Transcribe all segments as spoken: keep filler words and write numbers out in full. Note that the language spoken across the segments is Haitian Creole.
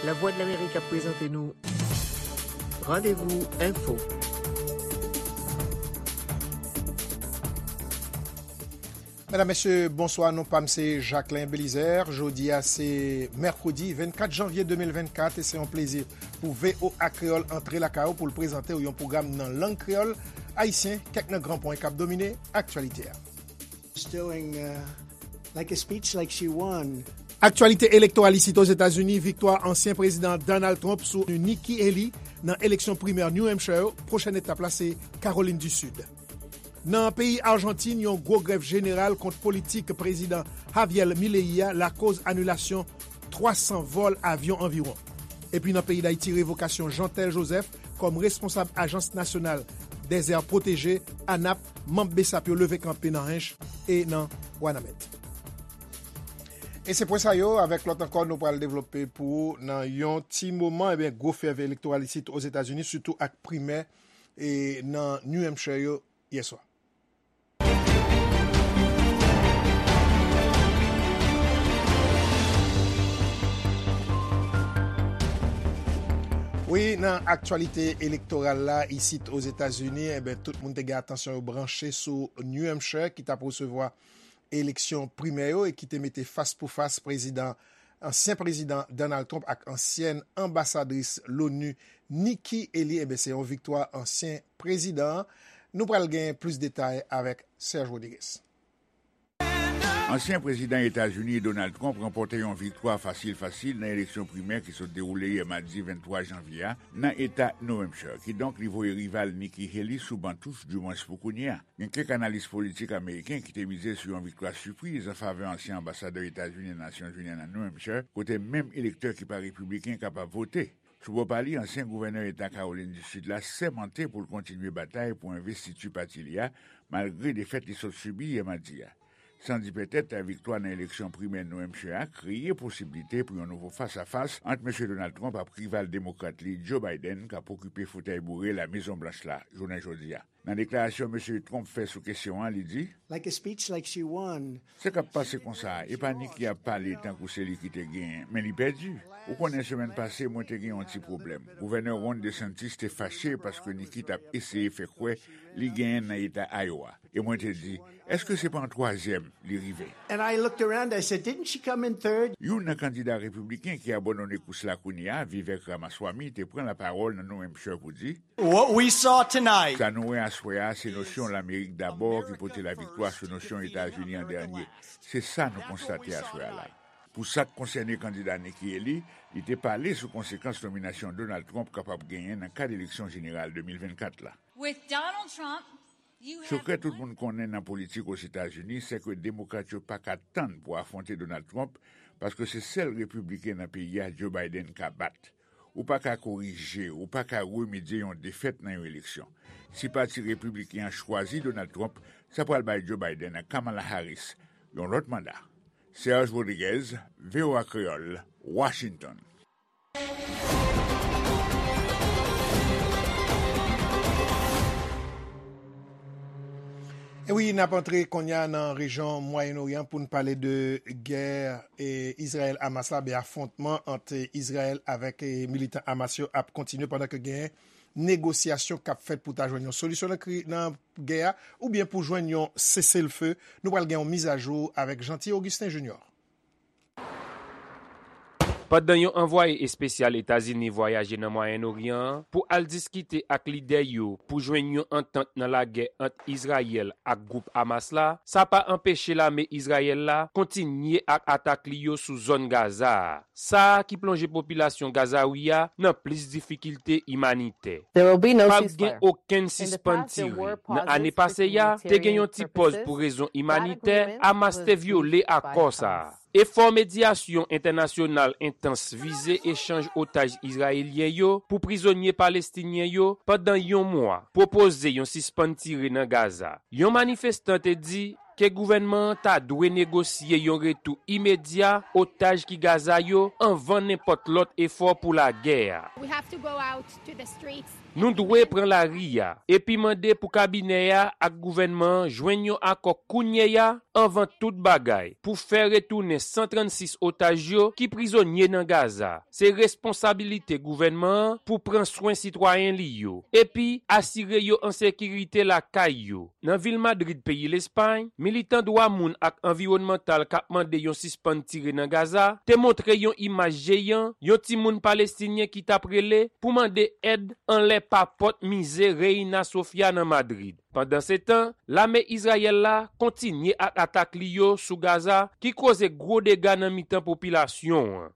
Lavwadlamerik ap prezante nou Randevou Enfo. Medam, mesye, bonswa. Non pa m se Jacquelin Belizaire. Jodi a se mèkredi vennkat janvye de mil vennkat e se yon plezi pou V O A Kreyòl antre lakay ou pou l prezante w yon pwogram nan lang kreyòl ayisyen, kèk nan gran pwen k ap domine aktyalite a. Stilling, uh, like a speech like she won. Aktyalite elektoral isit Ozetazini, viktwa ansyen prezidan Donald Trump sou Nikki Haley nan eleksyon primè New Hampshire yo. Pwochèn etap la se Kawolin di Sid. Nan peyi Ajantin, yon gwo grèv jeneral kont politik prezidan Javier Milei a lakoz anilasyon twa san vòl avyon anviwon. Epi nan peyi Dayiti, revokasyon Jeantel Joseph kòm responsab Ajans Nasyonal dèzè pwoteje, anap, manm BSAP yo leve kanpe nan Hench e nan Wanament. E se pwen sa yo, avèk lòt ankò, nou pral devlope pou ou nan yon ti moman. Ebyen, gwo fèv elektoral isit Ozetazini, sitou ak primè e nan New Hampshire yo yè swa. Wi, nan aktyalite elektoral la, isit Ozetazini, enben, tout moun te gen atansyon yo branche sou New Hampshire, ki t ap resevwa eleksyon primè yo e ki te mete fas pou fas prezidan, ansyen prezidan Donald Trump ak ansyèn anbasadris l'ONU Nikki Haley. Enben, se yon viktwa ansyen prezidan an. Nou pral gen plis detay avèk Serge Rodriguez. Ansyen prezidan Etazini Donald Trump ranpòte yon viktwa fasil fasil nan eleksyon primè ki sot dewoule yè madi venntwa janvye a nan eta New Hampshire. Kidonk, li voye rival Nikki Haley sou ban touch, dimwens pou kounye a. Gen kèk analis politik ameriken ki te mize sou yon viktwa sipriz an favè ansyen anbasadè Etazini nan Nasyonzini an nan New Hampshire, kote menm elektè ki pa repibliken kapab vote. Sou bò pa li, ansyen gouvènè eta Kawolin di Sid la sèmante pou l kontinye batay pou envestiti pati li a, malgre defèt li sot sibi yè madi a. San di petèt, viktwa nan eleksyon primè New Hampshire a kreye posiblite pou yon nouvo fas a fas ant mesye Donald Trump ak rival demokrat li, Joe Biden, k ap okipe fotèy boure La Mezon Blanch la, jounen jodi a. Nan deklarasyon mesye Trump fè sou kesyon an, li di, like a speech like she won. Sa k ap pase konsa, e pa Nikki ap pale tankou se li ki te genyen, men li pèdi. Ou konnen, semèn pase, mwen te gen yon ti pwoblèm. Gouvènè Ron DeSantis te fache paske Nikki t ap eseye fè kwè li genyen nan eta Iowa. E mwen te di, èske se pa an twazyèm li rive? And I looked around, I said, didn't she come in third? Youn nan kandida repibliken ki abandone kous la kounye a, Vivek Ramaswamy, te pran lapawòl nan New Hampshire pou di, what we saw tonight. Sa nou wè aswè a, se nosyon Lamerik dabò ki pote laviktwa sou nosyon Etazini an dènye. Se sa nou konstate aswè a la. Pou sa k konsène kandida Nikki Haley, li te pale sou konsekans nominasyon Donald Trump kapab genyen nan kad eleksyon jeneral de mil vennkat la. With Donald Trump, you have Sekrè tout moun konnen nan politik Ozetazini, se ke demokrat yo pa ka tann pou afwonte Donald Trump, paske se sèl repibliken nan peyi a Joe Biden ka bat. Ou pa ka korije, ou pa ka remedye yon defèt nan yon eleksyon. Si pati repibliken an chwazi Donald Trump, sa pral bay Joe Biden ak Kamala Harris yon lòt manda. Serge Rodriguez, V O A Kreyòl, Washington. E wi, n ap antre kounye a nan rejyon Mwayen Oryan pou n pale de gè, e, Izrayèl-Hamas la, ben, afwontman ant Izrayèl avèk, e, militan Hamas yo ap kontinye pandan ke gen negosyasyon k ap fèt pou ta jwenn yon solisyon nan kri-, nan gè a, oubyen pou jwenn yon seselfe. Nou pral gen yon mizajou avèk Jeanty Augustin Junior. Pandan yon anvwaye espesyal Etazini vwayaje nan Mwayen Oryan an pou al diskite ak lidè yo pou jwenn yon antant nan lagè ant Izrayèl ak gwoup Hamas la, sa pa anpeche lame Izrayèl la kontinye ak atak li yo sou zòn Gaza a. Sa a ki plonje popilasyon Gazawi a nan plis difikilte imanitè. P ap gen okenn sispann tire. Nan ane pase a, te gen yon ti pòz pou rezon imanitè, Hamas te vyole akò sa a. Efò medyasyon entènasyonal entans vize echanj otaj izrayelyen yo pou prizonye palestinyen yo pandan yon mwa pwopoze yon sispann tire nan Gaza. Yon manifestan te di ke gouvènman an ta dwe negosye yon retou imedya otaj ki Gaza yo anvan nenpòt lòt efò pou lagè a. We have to go out to the streets. Nou dwe pran lari a epi mande pou kabinè a ak gouvènman an jwenn yon akò kounye a anvan tout bagay pou fè retounen san trannsis otaj yo ki prizonye nan Gaza. Se responsabilite gouvènman an pou pran swen sitwayen li yo epi asire yo an sekirite lakay yo. Nan vil Madrid, peyi Lespay, militan dwa moun ak anviwònmantal k ap mande yon sispann tire nan Gaza te montre yon imaj jeyan yon timoun palestinyen ki t ap rele pou mande èd anlè pa pòt mize Reina Sofia nan Madrid. Pandansetan, lame Izrayèl la kontinye ak atak li yo sou Gaza ki koze gwo dega nan mitan popilasyon an.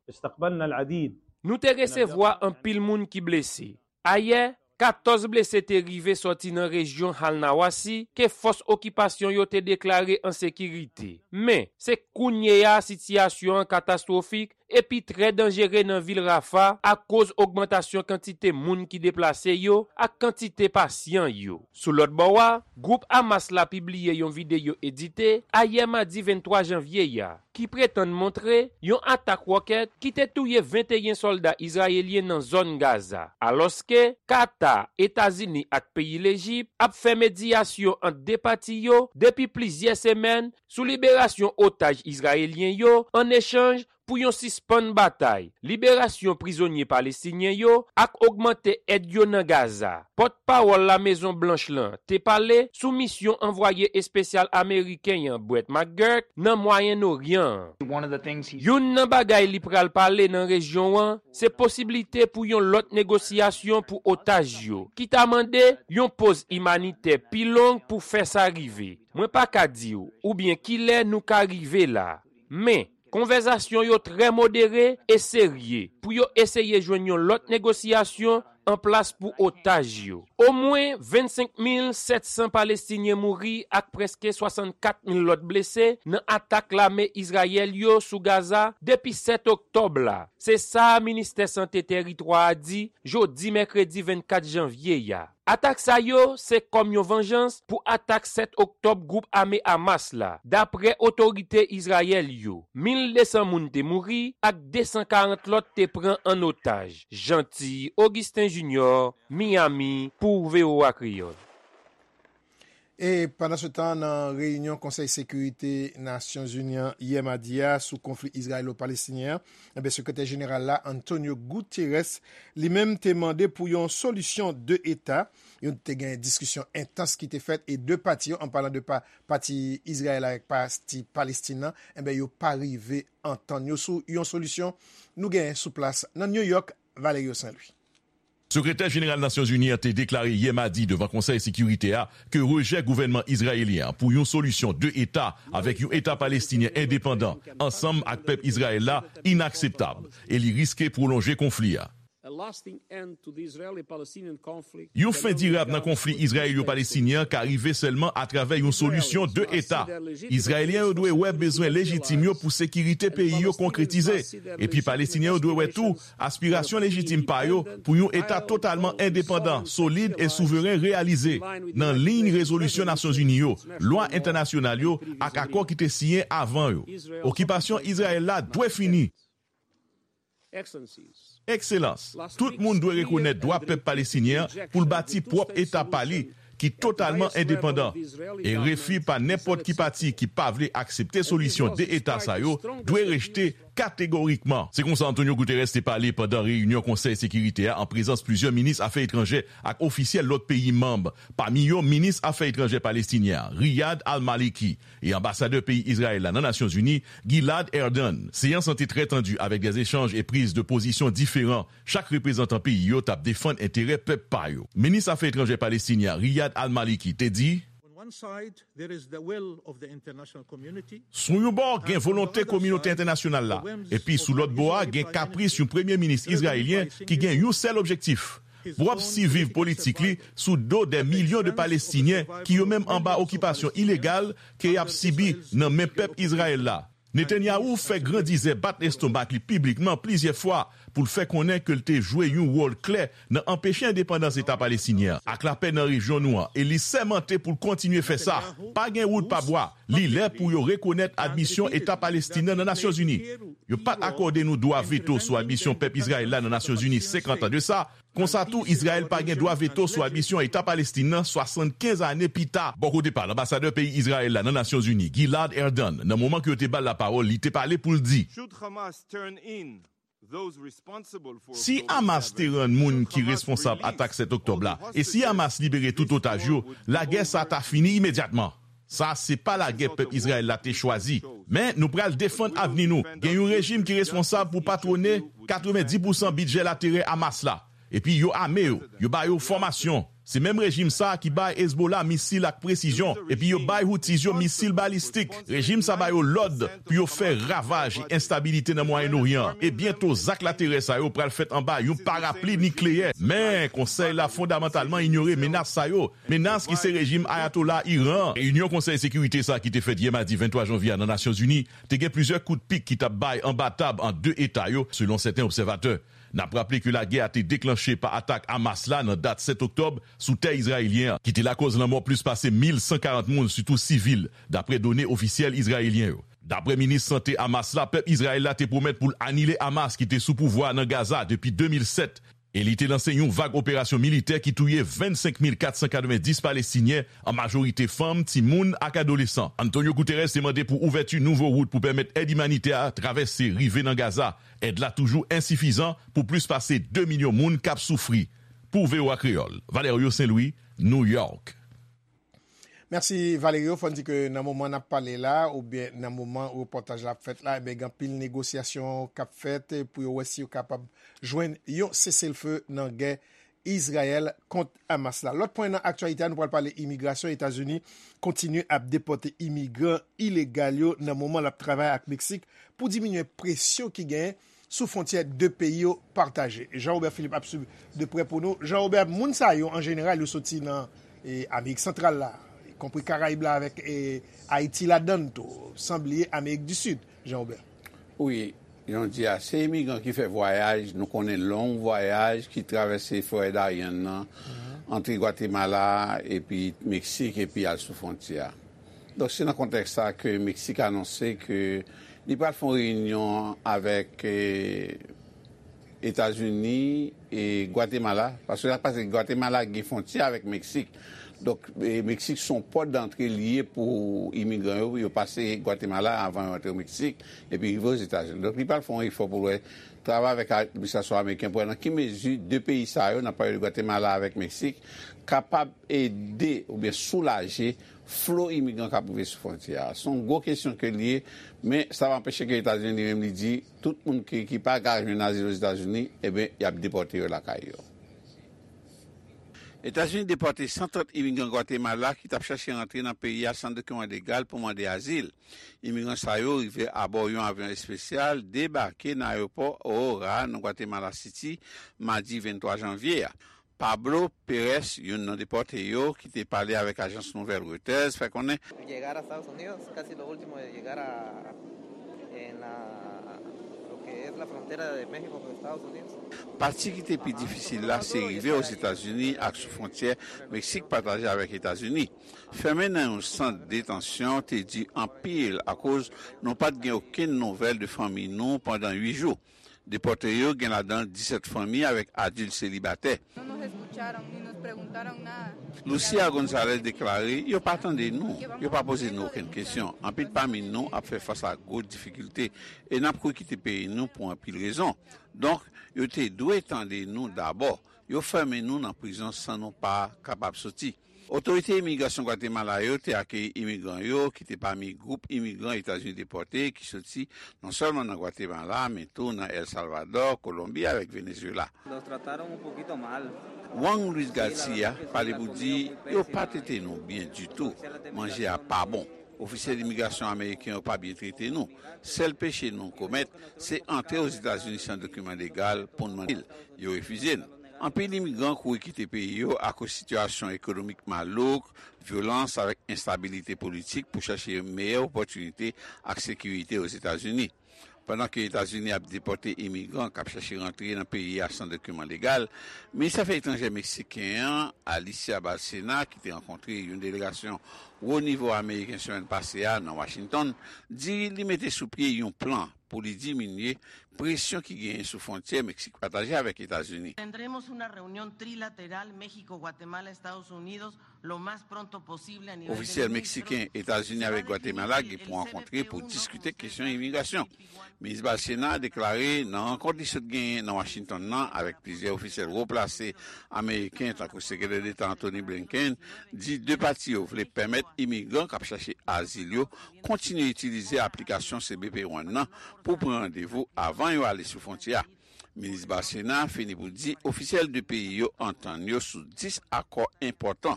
Nou te resevwa anpil moun ki blese. Ayè, katòz blese te rive sòti nan rejyon Al-Nawasi ke fòs okipasyon yo te deklare an sekirite. Men, se kounye a sitiyasyon an katastwofik epi trè danjere nan vil Rafa akoz ogmantasyon kantite moun ki deplase yo ak kantite pasyan yo. Sou lòt bò a, gwoup Hamas la pibliye yon videyo edite ayè madi venntwa janvye a ki pretann montre yon atak wòkèt ki te touye venteyen sòlda izrayelyen nan zòn Gaza, alòske Kata, Etazini ak peyi Lejip ap fè medyasyon ant de pati yo depi plizyè semèn sou liberasyon otaj izrayelyen yo an echanj pou yon sispann batay, liberasyon prizonye palestinyen yo ak ogmante èd yo nan Gaza. Pòtpawòl Lamezon Blanch lan te pale sou misyon anvwaye espesyal ameriken an Brett McGurk nan Mwayen Oryan an. Youn nan bagay li pral pale nan rejyon an se posiblite pou yon lòt negosyasyon pou otaj yo, ki ta mande yon poz imanitè pi long pou fè sa rive. Mwen pa ka di w oubyen kilè nou ka rive la. Men, konvèsasyon yo trè modere e serye pou yo eseye jwenn yon lòt negosyasyon an plas pou otaj yo. Omwen vennsenk mil sèt san Palestinyen mouri ak prèske swasannkat mil lòt blese nan atak lame Izrayèl yo sou Gaza depi sèt oktòb la. Se sa ministè sante tèritwa a di jodi mèkredi vennkat janvye a. Atak sa yo se kòm yon vanjans pou atak sèt oktòb gwoup ame Hamas la, dapre otorite Izrayèl yo. Mil de san moun te mouri ak de san karant lòt te pran an otaj. Jeanty Augustin Junior, Miami, pou V O A Kreyòl. E pandansetan, nan reyinyon Konsèy Sekirite Nasyonzini an yè madi a sou konfli izrayelo-palestinyen an, enben, Sekretè Jeneral la, Antonio Guterres, li menm te mande pou yon solisyon de eta. Yon te gen diskisyon entans ki te fèt e de pati yo, an palan de pa, pati Izrayèl avèk pati Palestin nan, enben, yo pa rive antann yo sou yon solisyon. Nou genyen sou plas nan New York, Valerio Saint Louis. Sekretè Jeneral Nasyonzini an te deklare yè madi devan Konsèy Sekirite a ke rejè gouvènman izrayelyen an pou yon solisyon de eta avèk yon eta palestinyen endepandan ansanm ak pèp Izrayèl la inakseptab e li riske pwolonje konfli a. A lasting end to the Israeli-Palestinian conflict. Yon fen dirab nan konfli izrayelo-palestinyen an ka rive sèlman atravè yon solisyon de eta. Izrayelyen yo dwe wè bezwen lejitim yo pou sekirite peyi yo konkretize, epi Palestinyen yo dwe wè tou aspirasyon lejitim pa yo pou yon eta totalman endepandan, solid e souveren reyalize, nan liy rezolisyon Nasyonzini yo, lwa entènasyonal yo ak akò ki te siyen avan yo. Okipasyon Izrayèl la dwe fini. Ekselans, tout moun dwe rekonèt dwa pèp palestinyen an pou l bati pwòp eta pa li ki totalman endepandan e refi pa nenpòt ki pati ki pa vle aksepte solisyon de eta sa yo dwe rejte kategorikman. Se konsa Antonio Guterres te pale pandan reyinyon Konsèy Sekirite a an prezans plizyè minis afè etranjè ak ofisyèl lòt peyi manm, pami yo minis afè etranjè palestinyen an, Riyad al-Maliki, e anbasadè peyi Izrayèl la nan Nasyonzini, Gilad Erdan. Seyans lan te trè tandi avèk de echanj e priz de pozisyon diferan. Chak reprezantan peyi yo t ap defann enterè pèp pa yo. Minis afè etranjè palestinyen an, Riyad al-Maliki, te di, On one side, there is the will of the international community. Sou yon bò, gen volonte kominote entènasyonal la, epi sou lòt bò a, gen kapris yon premye minis izrayelyen ki gen yon sèl objektif, pwòp siviv politik li sou do dè milyon de Palestinyen ki yo menm anba okipasyon ilegal ke y ap sibi nan men pèp Izrayèl la. Netanyahu fè grandizè bat lestomak li piblikman plizyè fwa pou l fè konnen ke l te jwe yon wòl klè nan anpeche endepandans Eta Palestinyen an ak lapè nan rejyon nou an, e li sèmante pou l kontinye fè sa. Pa gen wout pa bwa. Li lè pou yo rekonèt admisyon Eta Palestinyen nan Nasyonzini. Yo pa t akòde nou dwa veto sou admisyon pèp Izrayèl la nan Nasyonzini senkant an de sa, Konsa tou, Izrayèl pa gen dwa veto sou admisyon Eta Palestin nan swasannkenz ane pita. Bò kote pa l, anbasadè peyi Izrayèl la nan Nasyonzini, Gilad Erdan, nan moman ke yo te ba l lapawòl, li te pale pou l di, si Hamas te rann moun ki responsab atak sèt oktòb la, e si Hamas libere tout otaj yo, lagè sa ta fini imedyatman. Sa se pa lagè pèp Izrayèl la te chwazi. Men nou pral defann avni nou. Gen yon rejim ki responsab pou patwone katrevenndis pousan bidjè laterè Hamas la. Epi yo ame yo, yo ba yo fòmasyon. Se menm rejim sa a ki bay Hezbollah misil ak presizyon, epi yo bay Houthis yo misil balistik. Rejim sa ba yo lòd pou yo fè ravaj e enstabilite nan Mwayen Oryan. E byento, zak laterè sa yo pral fèt anba yon parapli nikleyè. Men, Konsèy la fondamantalman inyore menas sa yo. Menas ki se rejim Ayatollah Iran. Reyinyon Konsèy Sekirite sa a ki te fèt yè madi venntwa janvye a nan Nasyonzini te gen plizyè kout pik ki t ap bay anba tab ant de eta yo, selon sèten obsèvatè. N ap raple ke lagè a te deklanche pa atak Hamas la nan dat sèt oktòb sou tè izrayelyen an, ki te lakòz lanmò plis pase mil san karant moun, sitou sivil, dapre done ofisyèl izrayelyen yo. Dapre minis sante Hamas la, pèp Izrayèl la te pwomèt pou l anile Hamas ki te sou pouvwa a nan Gaza depi de mil sèt, e li te lanse yon vag operasyon militè ki touye vennsenk mil kat san katrevenndis Palestinyen, an majorite fanm, timoun ak adolesan. Antonio Guterres te mande pou ouvèti nouvo wout pou pèmèt èd imanitè a travèse, rive nan Gaza. Èd la toujou ensifizan pou plis pase de milyon moun k ap soufri. Pou V O A Kreyòl, Valerio Saint-Louis, New York. Mèsi Valerio, fò n di ke nan moman n ap pale la, oubyen nan moman repòtaj la ap fèt la, ebyen gen anpil negosyasyon k ap fèt pou yo wè si yo kapab jwenn yon seselfe nan gè Izrayèl kont Hamas la. Lòt pwen nan aktyalite a, nou pral pale imigrasyon. Etazini kontinye ap depòte imigran ilegal yo nan moman l ap travay ak Meksik pou diminye presyon ki genyen sou fwontyè de peyi yo pataje. Jean Robert Philippe ap swiv de prè pou nou. Jean Robert, moun sa yo an jeneral yo soti nan e, Amerik Santral la, konpri Karayib la avèk e, Ayiti ladan l tou, san bliye Amerik di Sid, Jean Robert. Wi, jan w di a, se imigran ki fè vwayaj, nou konnen long vwayaj, ki travèse forè Darien nan, antre Gwatemala, epi Meksik, epi al sou fwontyè a. Donk, se nan kontèks sa ke Meksik anonse ke li pral fè yon reyinyon avèk e, Etazini e Gwatemala, paske sa k pase, Gwatemala gen fwontyè avèk Meksik. Donk, e, Meksik se yon pòt dantre li ye pou imigran yo, yo pase Gwatemala avan yo antre Meksik, epi rive Ozetazini. Donk, li pral fè yon efò pou l wè, travay avèk administrasyon ameriken pou wè nan ki mezi de peyi sa yo, n ap pale de Gwatemala avèk Meksik, kapab ede oubyen soulaje flo imigran k ap rive sou fwontyè a. Se yon gwo kesyon ke l ye, men sa pa anpeche ke Etazini li menm li di, tout moun ki, ki pa ka jwenn azil Ozetazini, ebyen, y ap depòte yo lakay yo. Etazini depòte san trant imigran Gwatemala ki t ap chache rantre nan peyi a san dokiman legal pou mande azil. Imigran sa yo rive abò yon avyon espesyal, debake nan ayewopò Aurora nan Gwatemala City, madi venntwa janvye a. Pablo Pérez, youn nan depòte yo, ki te pale avèk ajans nouvèl Reuters, fè konnen, pati ki te pi difisil la se rive Ozetazini ak sou fwontyè Meksik pataje avèk Etazini. Fèmen nan yon sant detansyon te di anpil akoz nou pa t gen okenn nouvèl de fanmi nou pandan uit jou. Depòte yo gen ladan l disèt fanmi avèk adilt selibatè. Lucia Gonzalez deklare, yo pa tande nou, yo pa poze nou okenn kesyon. Anpil pami nou ap fè fas a gwo difikilte e n ap kouri kite peyi nou pou anpil rezon. Donk, yo te dwe tande nou dabò. Yo fèmen nou nan prizon san nou pa kapab soti. Otorite imigrasyon Gwatemala yo te akeyi imigran yo, ki te pami gwoup imigran Etazini depòte ki soti non sèlman nan Gwatemala, men tou nan El Salvador, Kolonbi avèk Venezuela. Juan Luis Garcia pale pou di yo pa trete nou byen ditou. Manje a pa bon. Ofisyèl imigrasyon ameriken yo pa byen trete nou. Sèl peche nou komèt, se antre Ozetazini san dokiman legal pou n mande l. Yo refize n. Anpil imigran kouri kite peyi yo akoz sitiyasyon ekonomik malouk, vyolans avèk enstabilite politik pou chache meyè opòtinite ak sekirite Ozetazini. Pandan ke Etazini ap depòte imigran k ap chache rantre nan peyi a san dokiman legal, minis afè etranjè meksiken an, Alicia Bárcena, ki te rankontre yon delegasyon wo nivo ameriken semèn pase a nan Washington di li mete sou pye yon plan pou li diminye presyon ki genyen sou fwontyè Meksik pataje avèk Etazini. Tendremos una reunión trilateral México, Guatemala, Estados Unidos lo más pronto posible a nivel de Ofisyèl meksiken, Etazini avèk Gwatemala gen pou rankontre pou diskite kesyon imigrasyon. Minis Balsena deklare nan rankont li sot genyen nan Washington nan avèk plizyè ofisyèl wo plase ameriken, tankou Sekretè Deta Antony Blinken, di de pati yo vle pèmèt imigran k ap chache azil yo kontinye itilize aplikasyon C B P One nan pou pran randevou avan yo ale sou fwontyè a. Minis Balsena fini pou di ofisyèl de peyi yo antann yo sou dis akò enpòtan.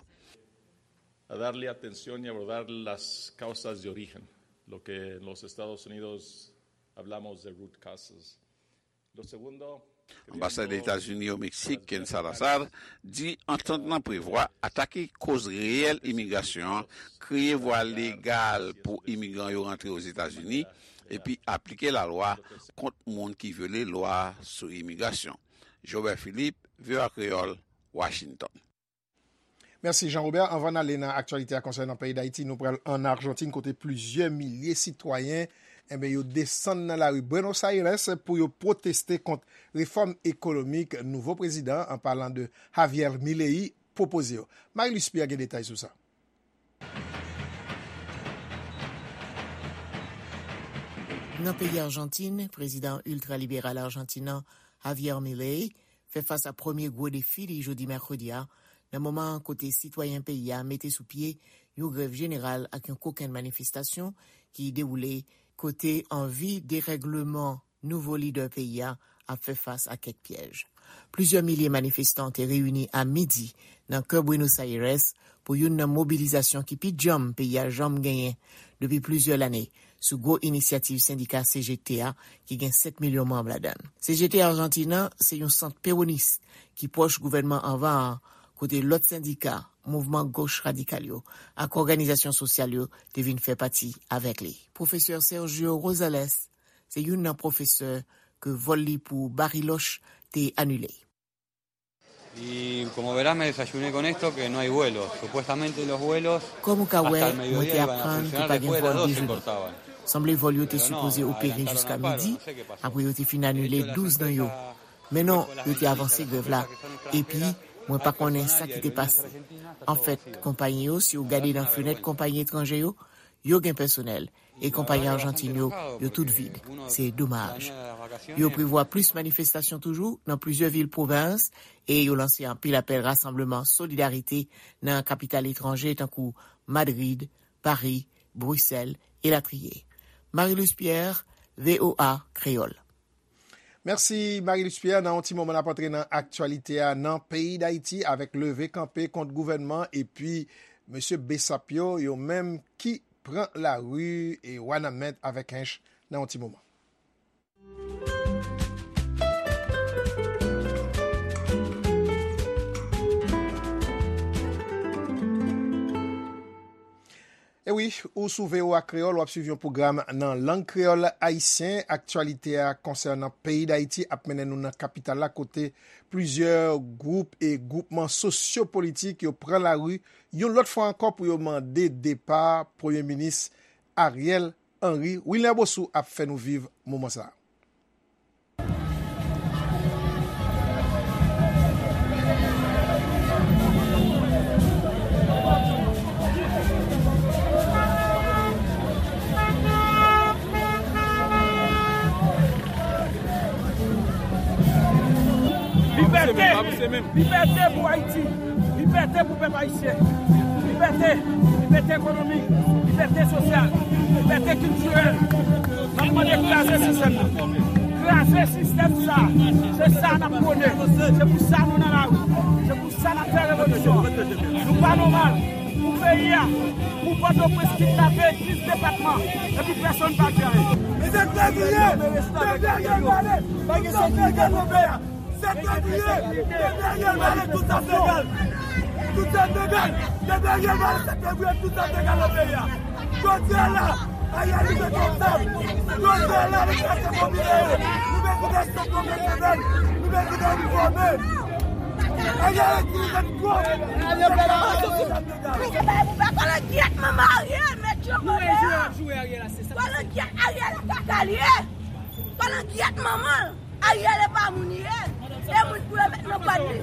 A darle atención y abordar las causas de origen, lo que en los Estados Unidos hablamos de root causes. Lo segundo, Anbasadè Etazini o Meksik, Ken Salazar, di antant lan prevwa atake koz reyèl imigrasyon an, kreye vwa legal pou imigran yo rantre Ozetazini, epi aplike lalwa kont moun ki vyole lwa sou imigrasyon. Jobert Philippe, V O A Kreyòl, Washington. Mèsi, Jean Robert. Anvan n ale nan aktyalite a konsènan peyi Dayiti, nou pral ann Ajantin, kote plizyè milye sitwayen, enben, yo desann nan lari Buenos Aires pou yo pwoteste kont refòm ekonomik nouvo prezidan an, an palan de Javier Milei, pwopoze yo. Marie-Luce Pierre gen detay sou sa. Nan peyi Ajantin, prezidan iltraliberal ajantin an, Javier Milei, fè fas a premye gwo defi li jodi mèkredi a, nan moman kote sitwayen peyi a mete sou pye yon grèv jeneral ak yon kokenn manifestasyon ki dewoule kote anvi derègleman nouvo lidè peyi a ap fè fas a kèk pyèj. Plizyè milye manifestan te reyini a midi nan kè Buenos Aires pou youn nan mobilizasyon ki pi djanm peyi a janm genyen depi plizyè lane, sou gwo inisyativ sendika C G T a ki gen sèt milyon manm ladan l. C G T Ajantin an se yon sant pewonis ki pwòch gouvènman anvan an, kote lòt sendika, mouvman goch radikal yo ak òganizasyon sosyal yo te vin fè pati avèk li. Pwofesè Sergio Rosales se youn nan pwofesè ke vòl li pou Bariloche te anile. Y como verás, me desayuné con esto, que no hay vuelos. Supuestamente los vuelos. Kòm ou ka wè, mwen te aprann ke pa gen vòl dejounen. Sanble vòl yo te sipoze opere jiska midi, apre yo te fin anile douz nan yo. Men non, yo te avanse grèv la. Epi, mwen pa konnen sa ki te pase. Anfèt, konpayi yo, si w gade nan fenèt konpayi etranje yo, yo gen pèsonèl, e konpayi ajantin yo, yo tout vid. Se domaj. Yo prevwa plis manifestasyon toujou nan plizyè vil pwovens, e yo lanse anpil apèl rasanbleman solidarite nan kapital etranje tankou Madrid, Pari, Brisèl, elatriye. Marie-Luce Pierre, V O A Kreyòl. Mèsi, Marie-Luce Pierre. Nan yon ti moman, n ap antre nan aktyalite a nan peyi Dayiti avèk leve kanpe kont gouvènman epi mesye Bessap yo, yo menm ki pran lari e Wanament avèk Hench nan yon ti moman. E wi, ou sou V O A Kreyòl, w ap swiv yon pwogram nan lang kreyòl ayisyen. Aktyalite a konsènan peyi Dayiti ap mennen nou nan kapital la, kote plizyè gwoup e gwoupman sosyopolitik yo pran lari yon lòt fwa ankò pou yo mande depa Premye Minis Ariel Henry. Wilner Bosou ap fè nou viv moman sa a. Libète! Libète pou Ayiti! Libète pou pèp ayisyen! Libète! Libète ekonomik! Libète sosyal! Libète kiltirèl! N ap mande kraze sistèm nan! Kraze sistèm sa! Se sa n ap pwone! Se pou sa nou nan lari! Se pou sa n ap fè revolisyon! Nou pa nòmal! Pou peyi a, pou Pòtoprens kidnape dis depatman, epi pèsonn pa jere. Sèt fevriye, depi Ariel pale, pa gen sekirite nan peyi a. Sèt fevriye, depi Ariel pale, tout sa se egal. Tout sa se egal. Depi Ariel pale, sèt fevriye, tout sa se egal nan peyi a. Jodi a la, Ariel li se konpab. Jodi a la, li se konpab. Nou bezwen de sanksyon pèsonèl. Nou bezwen de nou fòme. Kòlongyèt manman Ariel, mèt yo kòlongyèt Ariel la kaka l ye. Kòlongyèt manman l. Ariel e pa moun li ye. E moun pou yo met nan kòd li.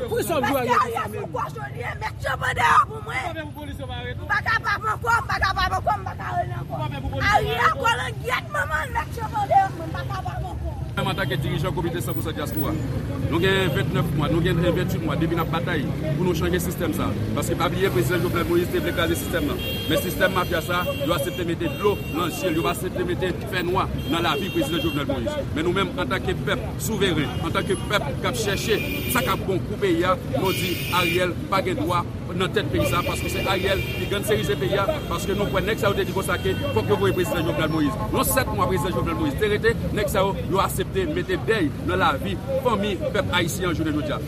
Paske Ariel se yon kòchon li ye. Met yo pran deyò pou mwen. M pa kapab ankò, m pa kapab ankò, m pa ka rele ankò. Ariel kòlongyèt manman l, met yo pran deyò pou mwen, m pa kapab ankò. Menm antanke dirijan Komite san pou san Dyaspora, nou gen vennèf mwa, nou gen venntuit mwa depi n ap batay pou nou chanje sistèm sa. Paske pa bliye, Prezidan Jovenel Moïse te vle kraze sistèm nan. Men sistèm mafya sa, yo aksepte mete dlo nan je l, yo pa aksepte mete fènwa nan lavi Prezidan Jovenel Moïse. Men nou menm, antanke pèp souveren, antanke pèp k ap chèche sa k ap bon pou peyi a, nou di Ariel pa gen dwa nan tèt peyi sa, paske se Ariel ki gangstèrize peyi a, paske nou kwè nèg sa yo te di konsa ke fòk yo voye Prezidan Jovenel Moïse. Yon sèt mwa Prezidan Jovenel Moïse te rete, nèg sa yo, yo aksepte mete dèy nan lavi fanmi pèp ayisyen an jounen jodi a.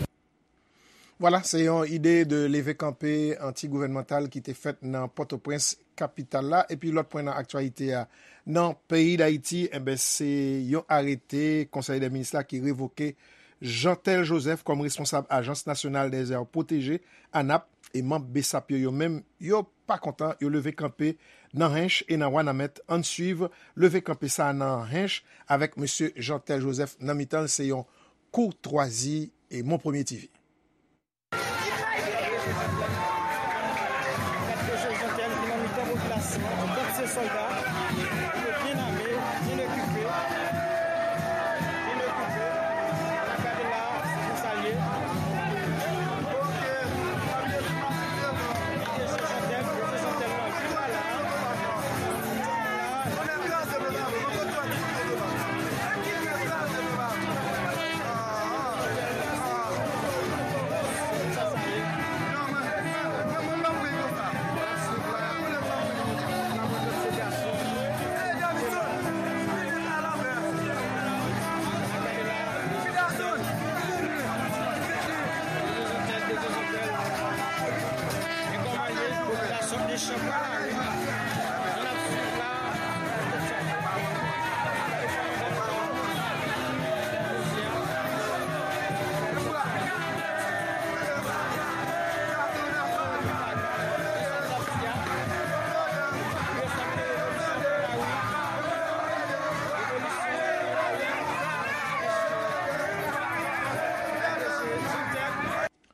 Vwala, se yon ide de leve kanpe anti-gouvènmantal ki te fèt nan Pòtoprens, kapital la. Epi lòt pwen nan aktyalite a, nan peyi Dayiti, enben, se yon arete Konsèy dè Minis la ki revoke Jeantel Joseph kòm responsab Ajans Nasyonal dè Zè Pwoteje, anap, e manm BSAP yo, yo menm, yo pa kontan, yo leve kanpe nan Hench e nan Wanament. Ann swiv leve kanpe sa a nan Hench avèk mesye Jeantel Joseph nan mitan l, se yon koutwazi e Mon Premye TV. Gad mesye Jeantel ki nan mitan popilasyon an, kont se sòlda, yo byen ame, byen ekipe, byen ekipe. N ap gade la, se konsa l ye. Mesye Jeantel, mesye Jeantel nan viv la.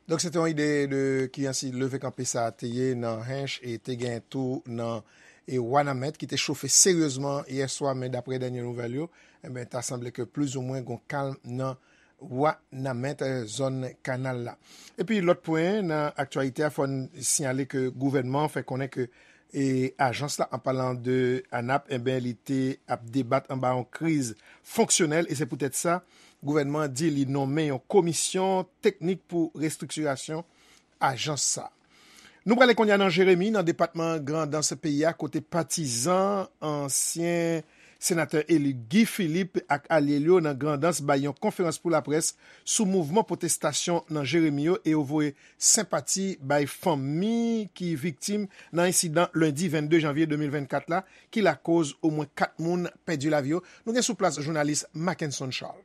Donk, se te yon ide de kijan si leve kanpe sa a te ye nan Hench e te gen tou nan e Wanament ki te chofe seryezman yè swa, men daprè dènye nouvèl yo, enben, ta sanble ke plizoumwen gon kalm nan Wanament, eh, zòn kanal la. Epi lòt pwen nan aktyalite a, fò n siyale ke gouvènman an fè konnen ke e ajans la, an palan de anap, enben, li te ap debat anba yon kriz fonksyonèl, e se poutèt sa, gouvènman an di li nonmen yon komisyon teknik pou restriktirasyon ajans sa. Nou prale kounye a nan Jeremi, nan depatman Grandans peyi a, kote patizan ansyen senatè eli Guy Philippe ak alye l yo nan Grandans bay yon konferans pou laprès sou mouvman pwotestasyon nan Jeremi yo e yo voye senpati bay fanmi ki viktim nan ensidan lendi vennde janvye de mil vennkat la, ki lakoz omwen kat moun pèdi lavi yo. Nou gen sou plas jounalis Mackenson Charles.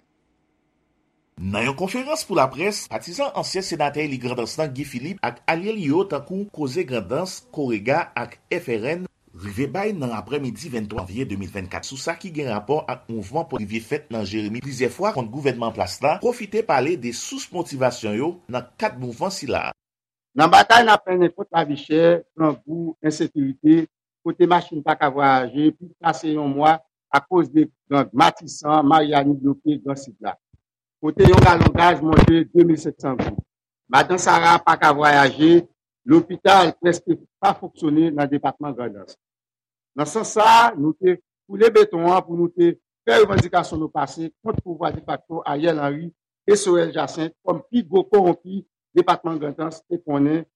Nan yon konferans pou laprès, patizan ansyen senatè eli Grandans lan Guy Philippe ak alye li yo tankou Koze Grandans, Korega ak F R N rive bay nan aprèmidi venntwa janvye de mil vennkat sou sa ki gen rapò ak mouvman pou rive fèt nan Jeremi plizyè fwa kont gouvènman an plas la, pwofite pale de sous motivasyon yo nan kad mouvman sila. Nan batay n ap mennen kont lavi chè, grangou, ensekirite, kote machin pa ka vwayaje, plis pase yon mwa akoz de gang Matisan, Maryani bloke Gran Sid la, kote yon galon gaz monte de mil senk san goud. Madan Sara pa ka vwayaje, lopital prèske pa fonksyone nan depatman Grandans. Nan sans sa a, nou te koule beton an pou nou te fè revandikasyon nou pase kont pouvwa defakto Ariel Henry e Sorel Jacinthe kòm pi gwo kowonpi depatman Grandans te konnen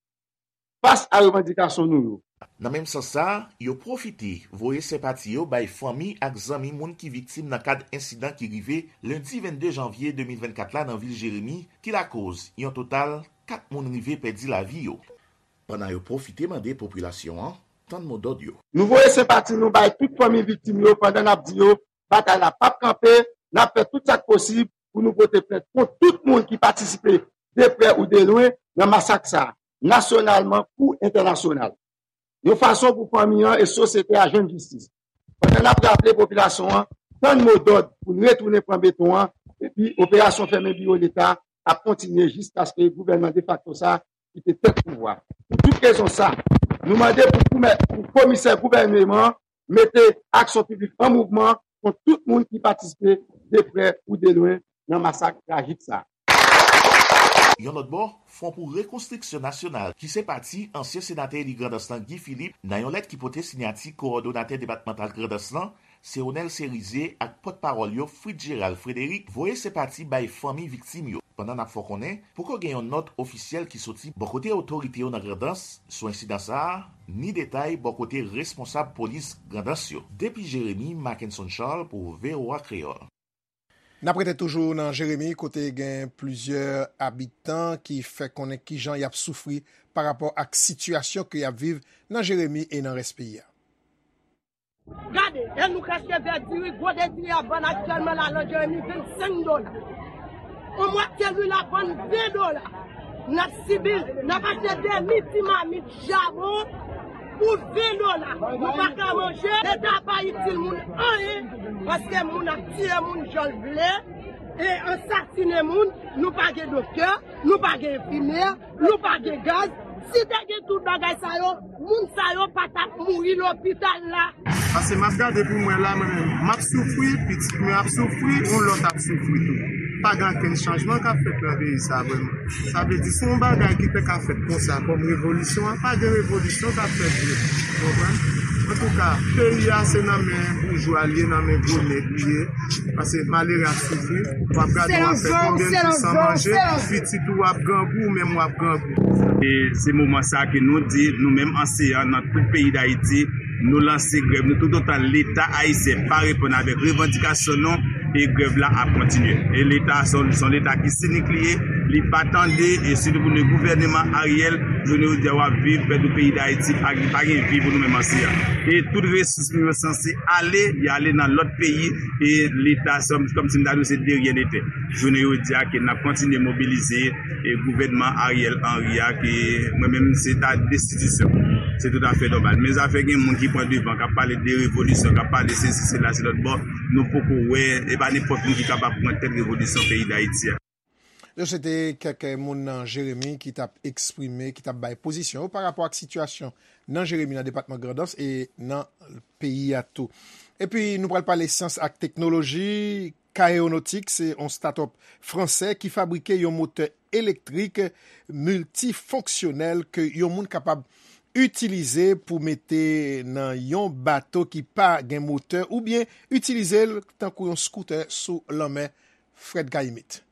fas a revandikasyon nou yo. Nan menm sans sa a, yo pwofite voye senpati yo bay fanmi ak zanmi moun ki viktim nan kad ensidan ki rive lendi vennde janvye de mil vennkat la nan vil Jeremi, ki lakoz yon total kat moun rive pèdi lavi yo. Pandan yo pwofite mande popilasyon an tann modòd yo. Nou voye senpati nou bay tout fanmi viktim yo pandan n ap di yo batay la p ap kanpe, n ap fè tout sa k posib pou nou pote plent kont tout moun ki patisipe de prè ou de lwen, nan masak sa a, nasyonalman kou entènasyonal. Yon fason pou fanmi an e sosyete a jwenn jistis. Pandan n ap raple popilasyon an, tann mo dòd pou n retounen pran beton an, epi operasyon fèmen biwo Leta ap kontinye jiskaske gouvènman defakto sa a kite tèt pouvwa. Pou tout rezon sa, nou mande pou koumè-, pou komisè gouvèneman an mete aksyon piblik an mouvman kont tout moun ki patisipe de prè ou de lwen nan masak trajik sa a. Yon lòt bò, Fwon pou Rekonstriksyon Nasyonal, ki se pati ansyen senatè eli Grandans lan Guy Philippe, nan yon lèt ki pote siyati kowòdonatè depatmantal Grandans lan, Seonel Serize ak pòtpawòl yo Fritz Gérald Frédéric voye senpati bay fanmi viktim yo. Pandan n ap fè w konnen, poko gen yon nòt ofisyèl ki soti bò kote otorite yo nan Grandans sou ensidan sa a, ni detay bò kote responsab polis Grandans yo. Depi Jeremi, Mackenson Charles pou V O A Kreyòl. N ap rete toujou nan Jeremi, kote gen plizyè abitan ki fè konnen kijan y ap soufri pa rapò ak sitiyasyon ke y ap viv nan Jeremi e nan rès peyi a. Gade, e nou ka cheve diri, gwo de diri ap vann aktyèlman la nan Jeremi vennsenk dola. On mwatye lwil ap vann ven dola. N ap sibi l, n ap achte demi ti mamit chabon pou ven dola. Nou pa ka manje, Leta pa itil moun anyen, paske moun ap tiye moun jan l vle, e ansasinen moun, nou pa gen doktè, nou pa gen enfimyè, nou pa gen gaz. Si te gen tout bagay sa yo, moun sa yo pa t ap mouri lopital la. Paske m ap gade pou m wè la, mwen menm, m ap soufri, pitit mwen ap soufri, yon lòt ap soufri tou. Pa gen okenn chanjman k ap fèt nan peyi sa a vrèman. Sa vle di, si yon bagay ki te ka fèt konsa kòm revolisyon an, pa gen revolisyon k ap fèt vre. Ou konprann? Antouka, peyi a se nan men boujwa l ye, nan men gwo nèg li ye. Paske malere ap soufri, w ap gade w ap fè konbyen jou san manje, pitit ou ap grangou, ou menm w ap grangou. E se moman sa ke nou di, nou menm anseyan nan tout peyi Dayiti, nou lanse grèv nou toutotan Leta ayisyen pa reponn avèk revandikasyon nou, e grèv la ap kontinye. E Leta se yon, se yon Leta ki sinik li ye, li pa tande, e sitou pou nou gouvèneman Ariel, jounen jodi a w ap viv, pèdi peyi Dayiti, pa, pa gen vi pou nou menm anseyan. E tout resous nou yo sanse ale, y ale nan lòt peyi, e Leta se kòmsi m ta di w se de ryen nete. Jounen jodi a ke n ap kontinye mobilize, e gouvènman Ariel Henry a, ke mwen menm se ta destitisyon. Se toutafè nòmal. Men zafè gen moun ki pran devan, k ap pale de revolisyon, k ap pale sesi, sela, se lòt bò, nou poko wè, e pa nenpòt moun ki kapab pran tèt revolisyon peyi Dayiti a. Yo se te kèk moun nan Jeremi ki t ap eksprime, ki t ap bay pozisyon yo pa rapò ak sitiyasyon nan Jeremi, nan depatman Grandans e nan peyi a tou. Epi nou pral pale syans ak teknoloji. Kaeonotik se yon start-up fransè ki fabrike yon motè elektrik miltifonksyonèl ke yon moun kapab itilize pou mete nan yon bato ki pa gen motè oubyen itilize l tankou yon skoutè sou lanmè. Fred Gaimit.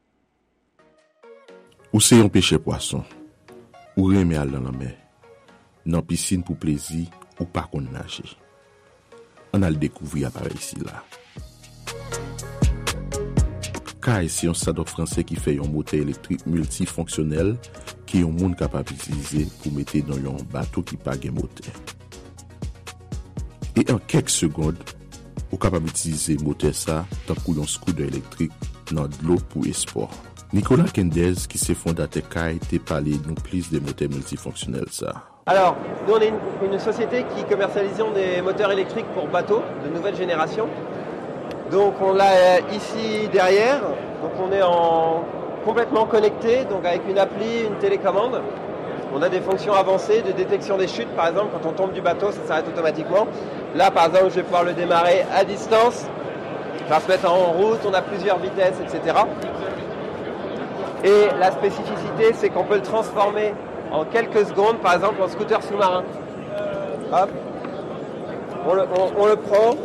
Ou se yon pechè pwason. Ou renmen al nan lanmè, nan pisin pou plezi, ou pa konn naje. Ann al dekouvri aparèy sila. Kay se yon start-up fransè ki fè yon motè elektrik miltifonksyonèl ke yon moun kapab itilize pou mete nan yon bato ki pa gen motè. E an kèk segond, ou kapab itilize motè sa tankou yon skoudè elektrik nan dlo pou espò. Nicolas Quendez, ki se fondatè Kay, te pale nou plis de motè miltifonksyonèl sa. Alors, nous, on est une, une société qui commercialisons des moteurs électriques pour bateaux de nouvelle génération. Donc, on l'a euh, ici derrière. Donc, on est en, complètement connecté, donc avec une appli, une télécommande. On a des fonctions avancées de détection des chutes, par exemple, quand on tombe du bateau, ça s'arrête automatiquement. Là, par exemple, je vais pouvoir le démarrer à distance, enfin, se mettre en route, on a plusieurs vitesses, et cetera. Et la spécificité, c'est qu'on peut le transformer en quelques secondes, par exemple, en scooter sous-marin. Hop. On le, on, on le prend,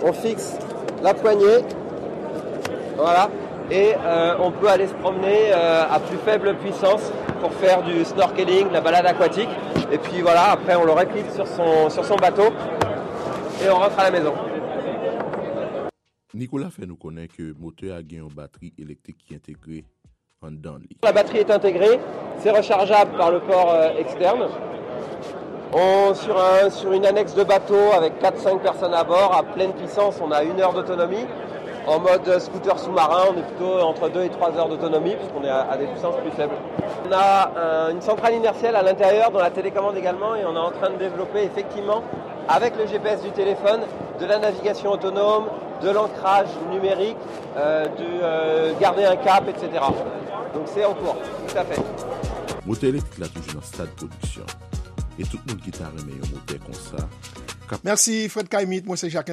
on fixe la poignée. Voilà. Et euh, on peut aller se promener euh, à plus faible puissance pour faire du snorkeling, de la balade aquatique. Et puis voilà, après on le reclipe sur son, sur son bateau et on rentre à la maison. Nicolas fè nou konnen ke motè a gen yon batri elektrik ki entegre anndan li. La batterie est intégrée, c'est rechargeable par le port euh, externe. On, sur, un, sur une annexe de bateau avec quatre cinq personnes à bord, à pleine puissance, on a une heure d'autonomie. En mode scooter sous-marin, on est plutôt entre deux et trois heures d'autonomie, puisqu'on est à, à des puissances plus faibles. On a un- une centrale inertielle à l'intérieur, dans la télécommande également, et on est en train de développer effectivement, avec le G P S du téléphone, de la navigation autonome, de l'ancrage numérique, euh, du euh, garder un cap, et cetera. Donc c'est en cours, tout à fait. Motè elektrik la toujou nan stad pwodiksyon. E tout moun ki ta renmen yon motè konsa, Mèsi Fred Caimite, mwen se Jacques